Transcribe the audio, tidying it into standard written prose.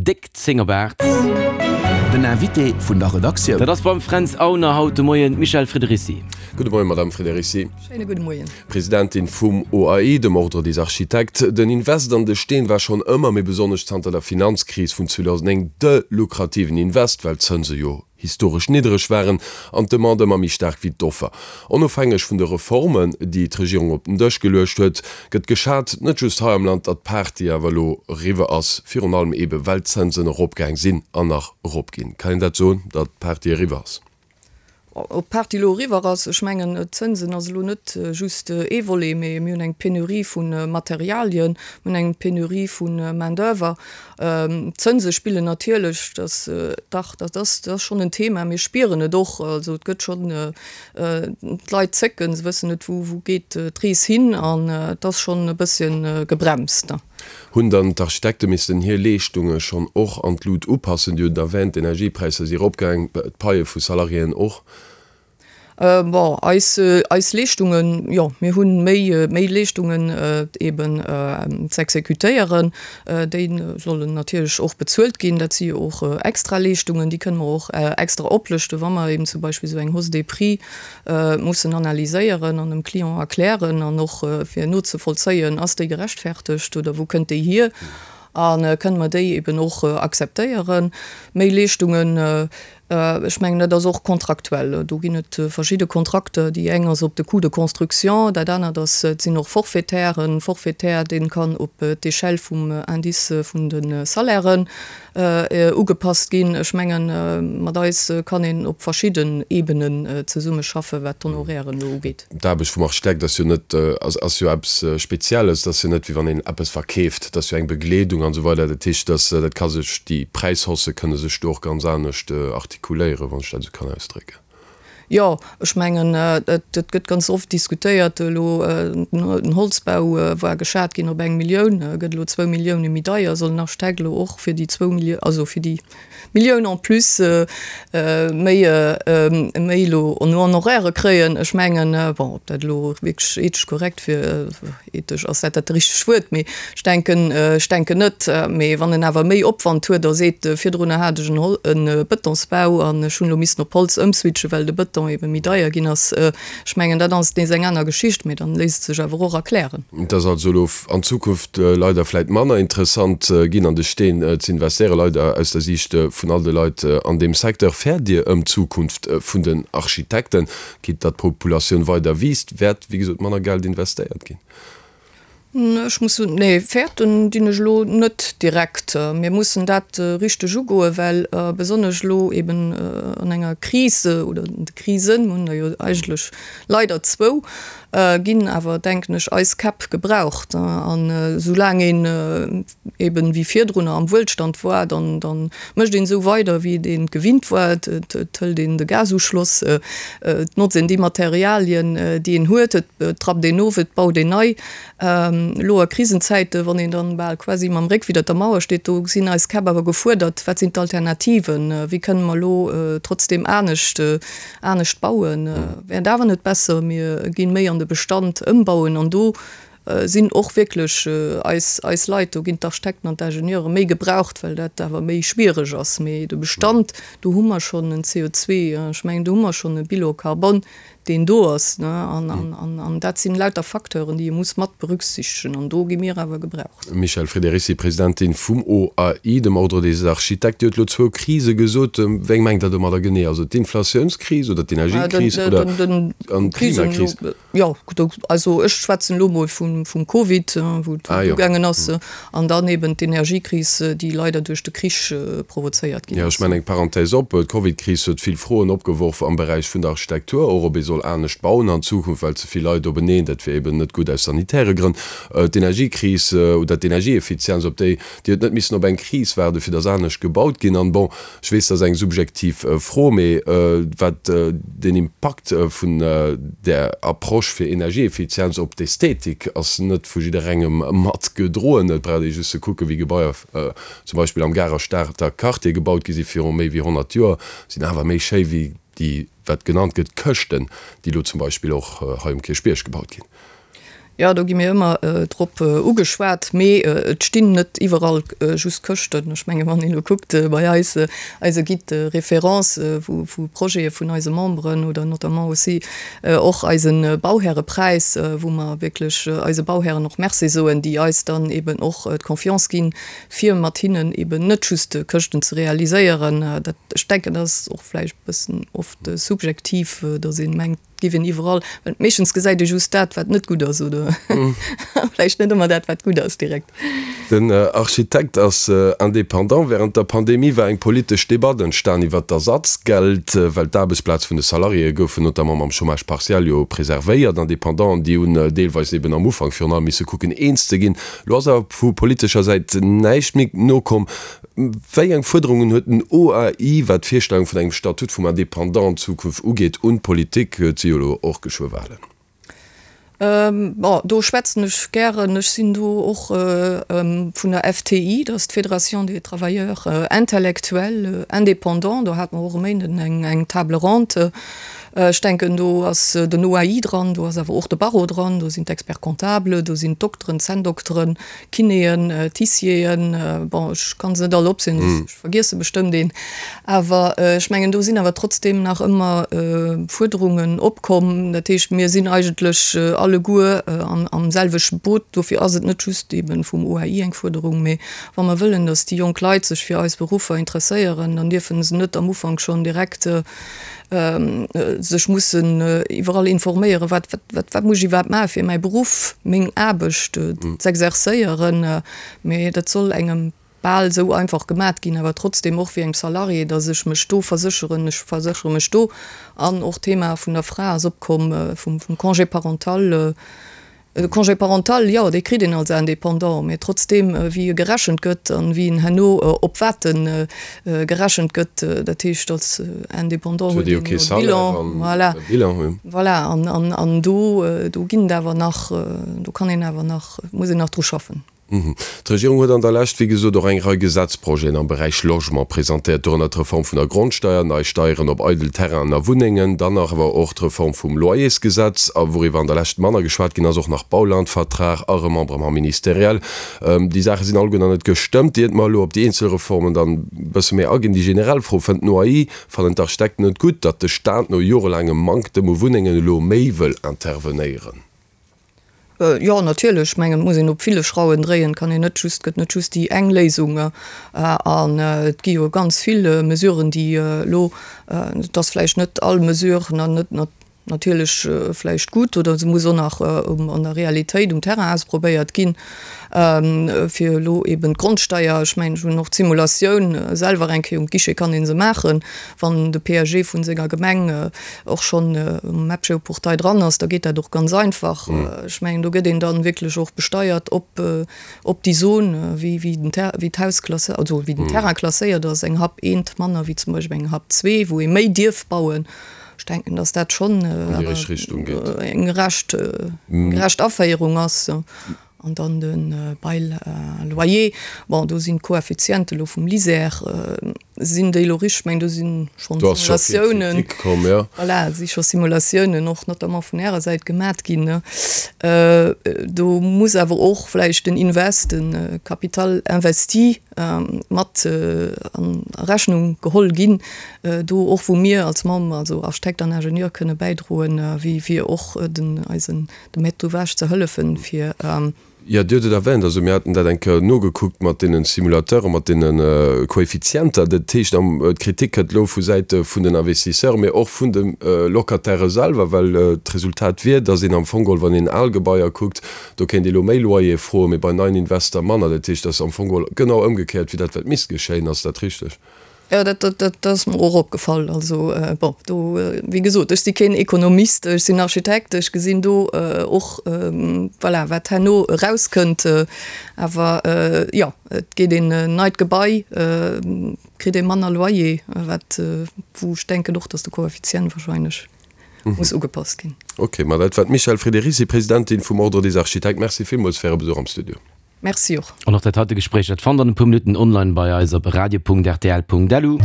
Déck 10 op 8. Den Invité vun der Redaktioun. Dat ass beim Fränz Aulner haut de Moien d'Michèle Friederici. Gudde Moien, Madame Friederici. Schéine gudde Moien. Presidentin vum OAI, dem Ordre des Architectes. Den Invest an de Steen war schonn ëmmer, mee besonnesch zanter der Finanzkris vun 2009, de lukrativen Invest, well d'Zënse jo historesch niddereg waren an d'Demande ëmmer méi staark wéi d'Offer. Onofhängeg vun de Reformen, déi d'Regierung op den Dësch geluecht huet, gëtt geschat, net just hei am Land, datt d'Party awer elo eriwwer ass, virun allem eebe well d'Zënsen eropgaang sinn an nach eropginn. Kann een dat soen, datt d'Party eriwwer ass? Ob d'Party elo eriwwer ass, ech mengen, d'Zënsen ass elo net just ee Volet, mee mir hunn eng Penurie vu Materialien, mir hunn eng Penurie vu Main d'oeuvre. D'Zënse spillen natierlech, dass, dach, dat ass, dat ass schonn en Thema. Mir spieren et och, also et gëtt schonn, d'Leit zécken, se wëssen net, wou, wou geet d'Rees hin an et ass schonn e bësschen gebremst. Hunn dann d'Architekte missten hir Leeschtunge schonn och an d'Lut upassen? Dir hutt et erwähnt, d'Energiepräisser si eropgaang, d'Paie vu Salariéen och. Bon, eis, eis Leeschtungen, jo, mir hu méi, méi Leeschtungen eben z'exekutéieren. Déi sollen natierlech och bezuelt ginn. Dat si jo och extra Leeschtungen, déi kënne mer och extra oplëschten, wa mer eben zum Beispill esou eng Hausse des prix mussen analyséieren an dem Client erklären an och fir nozevollzéien, ass déi gerechtfertegt oder wou kënnt déi hier a kënne mer déi eben och akzeptéieren. Méi Leeschtungen, ech mengen dat ass och kontraktuell, do ginn et verschidde Kontrakter, déi eng ass op de Coût de construction, dat anert ass, et sinn och Forfaitairen, Forfaitaire dee kann op d'Échelle vum Indice vun de Salairen ugepasst ginn. Ech mengen, mat eis kann een op verschidden Ebenen zesummeschaffen, wat d'Honorairen elo ugeet. D'Aarbecht vum Architekt ass jo net, ass jo eppes Spezielles. Et ass jo net, wéi wann een eppes verkeeft. Et ass jo eng Begleedung an esou weider. Dat heescht, dass dat ka sech, déi Präishaussë kënne sech do och ganz anescht artikuléieren, wann ech dat esou kann ausdrécken. Jo, ech mengen, et gëtt ganz oft diskutéiert elo, den Holzbau war geschat ginn op eng Millioun, gëtt elo zwou Millioune méi deier, soll den Architekt elo och fir déi zwou Millioun, also fir déi Millioun en plus méi, méi elo en Honoraire kréien? Ech mengen, bon, ob dat elo wierklech ethesch korrekt wier, Ethesch, ass dat dat richtegt Wuert? Mee ech denken, ech denken net. Mee wann en awer méi Opwand huet a seet, virdrunner hat ech en Hol-, e Bëtonsbau an ech hunn elo missen op Holz ëmswitchen, well de Bëton ebe méi deier ginn ass, ech mengen, dat ass nees eng aner Geschicht, mee dann léisst et sech awer och erklären. Et ass also elo an Zukunft leider vläit manner interessant ginn, an de Steen ze investéieren, leider aus der Siicht vun all de Leit an deem Secteur. Fäert Dir ëm d'Zukunft vun den Architekten? Quitte datt d'Populatioun weider wiisst, wäert wéi gesot manner Geld investéiert ginn. Ech muss soen, nee, fäerten dinn ech elo net direkt. Mir mussen dat richteg ugoen, well besonnesch elo eben an enger Kris oder de Krisen, mir hunn der jo eigentlech leider zwou, ginn awer, denken ech, eis Käpp gebraucht. An esoulaang een eben wéi virdrunner am Wuelstand war, dann dann mécht een esou weider wéi et een gewinnt war, et et hëlt een de Gasuschloss, et notzt een déi Materialien déi een huet, et trappt een of, et baut een nei. Elo a Krisenzäiten, wann een dann bal quasi mam Réck widder der Mauer steet, do sinn eis Käpp awer gefuerdert, wat sinn d'Alternativen, wéi kënne mer elo trotzdem anescht anescht bauen, wär et awer net besser mir ginn méi an de Bestand ëmbauen an do sinn och wierklech eis, eis Leit, do ginn d'Architekten an d'Ingenieure méi gebraucht, well dat awer méi schwiereg ass. Mee de Bestand, do hu mer schonn en CO2, ech mengen, do hu mer schonn e Bilan carbone, deen do ass. An, an, an dat sinn lauter Facteuren, déi ee muss mat berücksichtegen. An do gi mir awer gebraucht. Michèle Friederici, Presidentin vum OAI, dem Ordre des Architectes. Dir hutt elo zwou Krise gesot. Wéi eng mengt Der domadder genee? Also d'Inflatiounskris oder d'Energiekris oder an d'Klimakris? Jo, also ech schwätzen elo mol vum Covid, wou et ugaangen ass, an dann eben d'Energiekris, déi leider duerch de Krich provozéiert ginn ass. Jo, ech maachen eng Parenthèse op. D'Covidkris huet vill Froen opgeworf am Beräich vun der Architektur, och ob ee soll anescht bauen an Zukunft, well ze vill Leit openeen, dat wier eben net gutt aus sanitäre Grënn. D'Energiekris oder d'Energieeffizienz, op déi, déi huet net missen op eng Kris waarden, fir datt anescht gebaut ginn. An bon, Ech weess, dat ass eng subjektiv Fro, mee wat den Impakt vun där Approche fir Energieeffizienz op d'Ästhetik ass net vu jidderengem mat gedroen. Et brauch ee just ze kucken, wéi Gebaier zum Beispill am Garer Stater Quartier gebaut gi si viru méi wéi 100 Joer, sinn awer méi schéi wéi déi, wat genannt gëtt, Këschten, déi elo zum Beispill och hei um Kierchbierg gebaut ginn. Jo, do gi mir ëmmer drop ugeschwat, mee et stinn net iwwerall just Këschten. Ech menge wann een elo kuckt bei eis, eise Guide de référence vu vu Projete vun eise Memberen oder notamment aussi och eise Bauhärepräis, wou mer wierklech eise Bauhären och Merci soen, déi eis dann eben och d'Confiance ginn, fir mat hinnen eben net just Këschten ze realiséieren. Dat, ech denken, dat ass och vläicht e bëssen oft subjektiv, datt ee mengt, Giff een iwwerall, well meeschtens gesäit ee just dat, wat net gutt ass, oder vläicht net ëmmer dat, wat gutt ass direkt. Den Architekt ass indépendant. Wärend der Pandemie war eng politesch Debatt entstan iwwer d'Ersatzgeld, well d'Aarbechtsplaz vun de Salariéë goufen notamment mam Chômage partiel jo preservéiert. Independanten, déi hunn deelweis eben am Ufank virun allem misse kucken eens ze ginn. Lo ass awer vu politescher Säit näischt méi nokomm. Wéi eng Fuerderungen huet den OAI, wat d'Virstellung vun engem Statut vum Indépendant an Zukunft ugeet, un d'Politik? Et si jo elo och geschwë Wahlen. Bon, do schwätzen ech gären. Ech sinn do och vun der FTI, dat ass d'Fédération des Travailleurs Intellectuels Indépendants. Do hate mer och e Méinden eng Table ronde. Ech denken, do ass den OAI dran, do ass awer och de Barreau dran, do sinn d'Experts-comptables, do sinn d'Dokteren, d'Zänndokteren, Kinéen, Tissieren, bon ech kann se net all opzielen, ech vergiesse bestëmmt een, awer ech mengen do sinn awer trotzdeem nach ëmmer Fuerderungen opkomm. Dat heescht, mir sinn eigentlech alleguer am selwechte Boot. Dofir ass et net just eebe vum OAI eng Fuerderung, mee wa mer wëllen, datt déi jonk Leit sech fir eis Beruffer interesséieren, dann dierfe se net am Ufank schonn direkt sech mussen iwwerall informéieren, wat, wat, wat muss ech iwwerhaapt maachen, fir mäi Beruff, meng Aarbecht z'exerzéieren. Mee dat soll engem bal esou einfach gemat ginn, awer trotzdem och wéi engem Salarié, datt ech mech do versécheren, ech verséchere mech do. An och d'Thema vun der Fra ass opkomm, vum Congé parental. De Congé parental, jo, dee kritt een als Indépendant, mee trotzdeem, wéi e gerechent gëtt an wéi en herno op wat e gerechent gëtt, dat heescht, als Indépendant huet een jo e Bilan, voilà, voilà, an, an do, do ginn et awer nach, do kann een awer nach, muss een nach dru schaffen. D'Regierung huet an der Lescht, wéi gesot, och eng Rei Gesetzprojeten am Beräich Logement presentéiert, dorënner d'Reform vun der Grondsteier, nei Steieren op eidel Terrainen a Wunnengen, dann nach awer och d'Reform vum Loyersgesetz a wouriwwer an der Lescht manner geschwat ginn ass, och nach Baulandvertrag a Remembrement ministériel. Déi Saache sinn alleguer nach net gestëmmt. Iert mer elo op déi eenzel Reformen dann e bësse méi aginn, déi generell Fro, Fënnt den OAI, fannen d'Architekten et gutt, datt de Staat no jorelaangem Manktem u Wunnengen elo méi wëll intervenéieren? Jo, natierlech. Ech mengen, et muss een op ville Schrauwen dréien. Et kann een net just, et gëtt net just déi eng Léisung. An et gi jo ganz vill Mesuren, déi elo, et ass vläicht net all Mesure net natierlech vläicht gutt oder se muss och nach an der Realitéit um Terrain ausprobéiert ginn, fir elo eben d'Grondsteier, ech mengen, ech hunn och d'Simulatioun selwer eng Kéier um Guichet kann ee se maachen, wann de PAG vu senger Gemeng och schonn um Mapgeoportail dran ass, da geet dat och ganz einfach. Ech mengen, do gëtt een dann wierklech och besteiert op, op déi Zon, wéi, wéi den Ter, wéi d'Haus klassé, also wéi den Terrain klasséiert ass, eng Hap eent manner wéi zum Beispill eng Hap zwee, wou ee méi dierf bauen. Ech denken, dass dat schonn eng gerecht, gerecht Aféierung ass. An dann de Bail à loyer, bon do sinn d'Koeffiziente elo vum LISER, sinn déi elo richteg? Ech mengen do si schonn Simulatiounen, voilà, si scho Simulatiounen och notamment vun Ärer Säit gemat ginn. Do muss awer och vläicht den Invest, de Capital investi mat a Rechnung geholl ginn, do och wou mir als Member, also Architekt an Ingenieur kënne bäidroen, wéi fir och den eisen dem Maître d'ouvrage ze hëllefen, fir. Jo, Dir hutt et erwähnt, also mir haten dat eng Kéier nogekuckt mat deene Simulateuren, mat deene Koeffizienter. Dat heescht, d'Kritik kënnt elo vu Säite vun den Investisseuren, mee och vun de Locatairë selwer, well d'Resultat wier, datt een am Fong geholl, wann een al Gebaier kuckt, do kéint ee elo méi Loyer froen, mee bei neien Invester manner. Dat heescht, dat ass am Fong geholl genau ëmgekéiert wéi dat, wat misst geschéien. Ass dat richteg? Jo, dat, dat, dat ass mer och opgefall. Also, bon, do, wéi gesot, ech si keen Ekonomist, ech sinn Architekt, ech gesinn do och, voilà, wat herno erauskënnt. Awer jo, et geet een en neit Gebai, kritt ee manner Loyer, wat, wou ech denken och, datt de Koeffizient wahrscheinlech muss ugepasst ginn. Okay, ma dat war d'Michèle Friederici, Presidentin vum Ordre des Architectes. Merci villmools fir Äre Besuch am Studio. Merci och. An och dat heite Gespréich, dat fannt der an e puer Minutten online bei eis op radio.rtl.lu.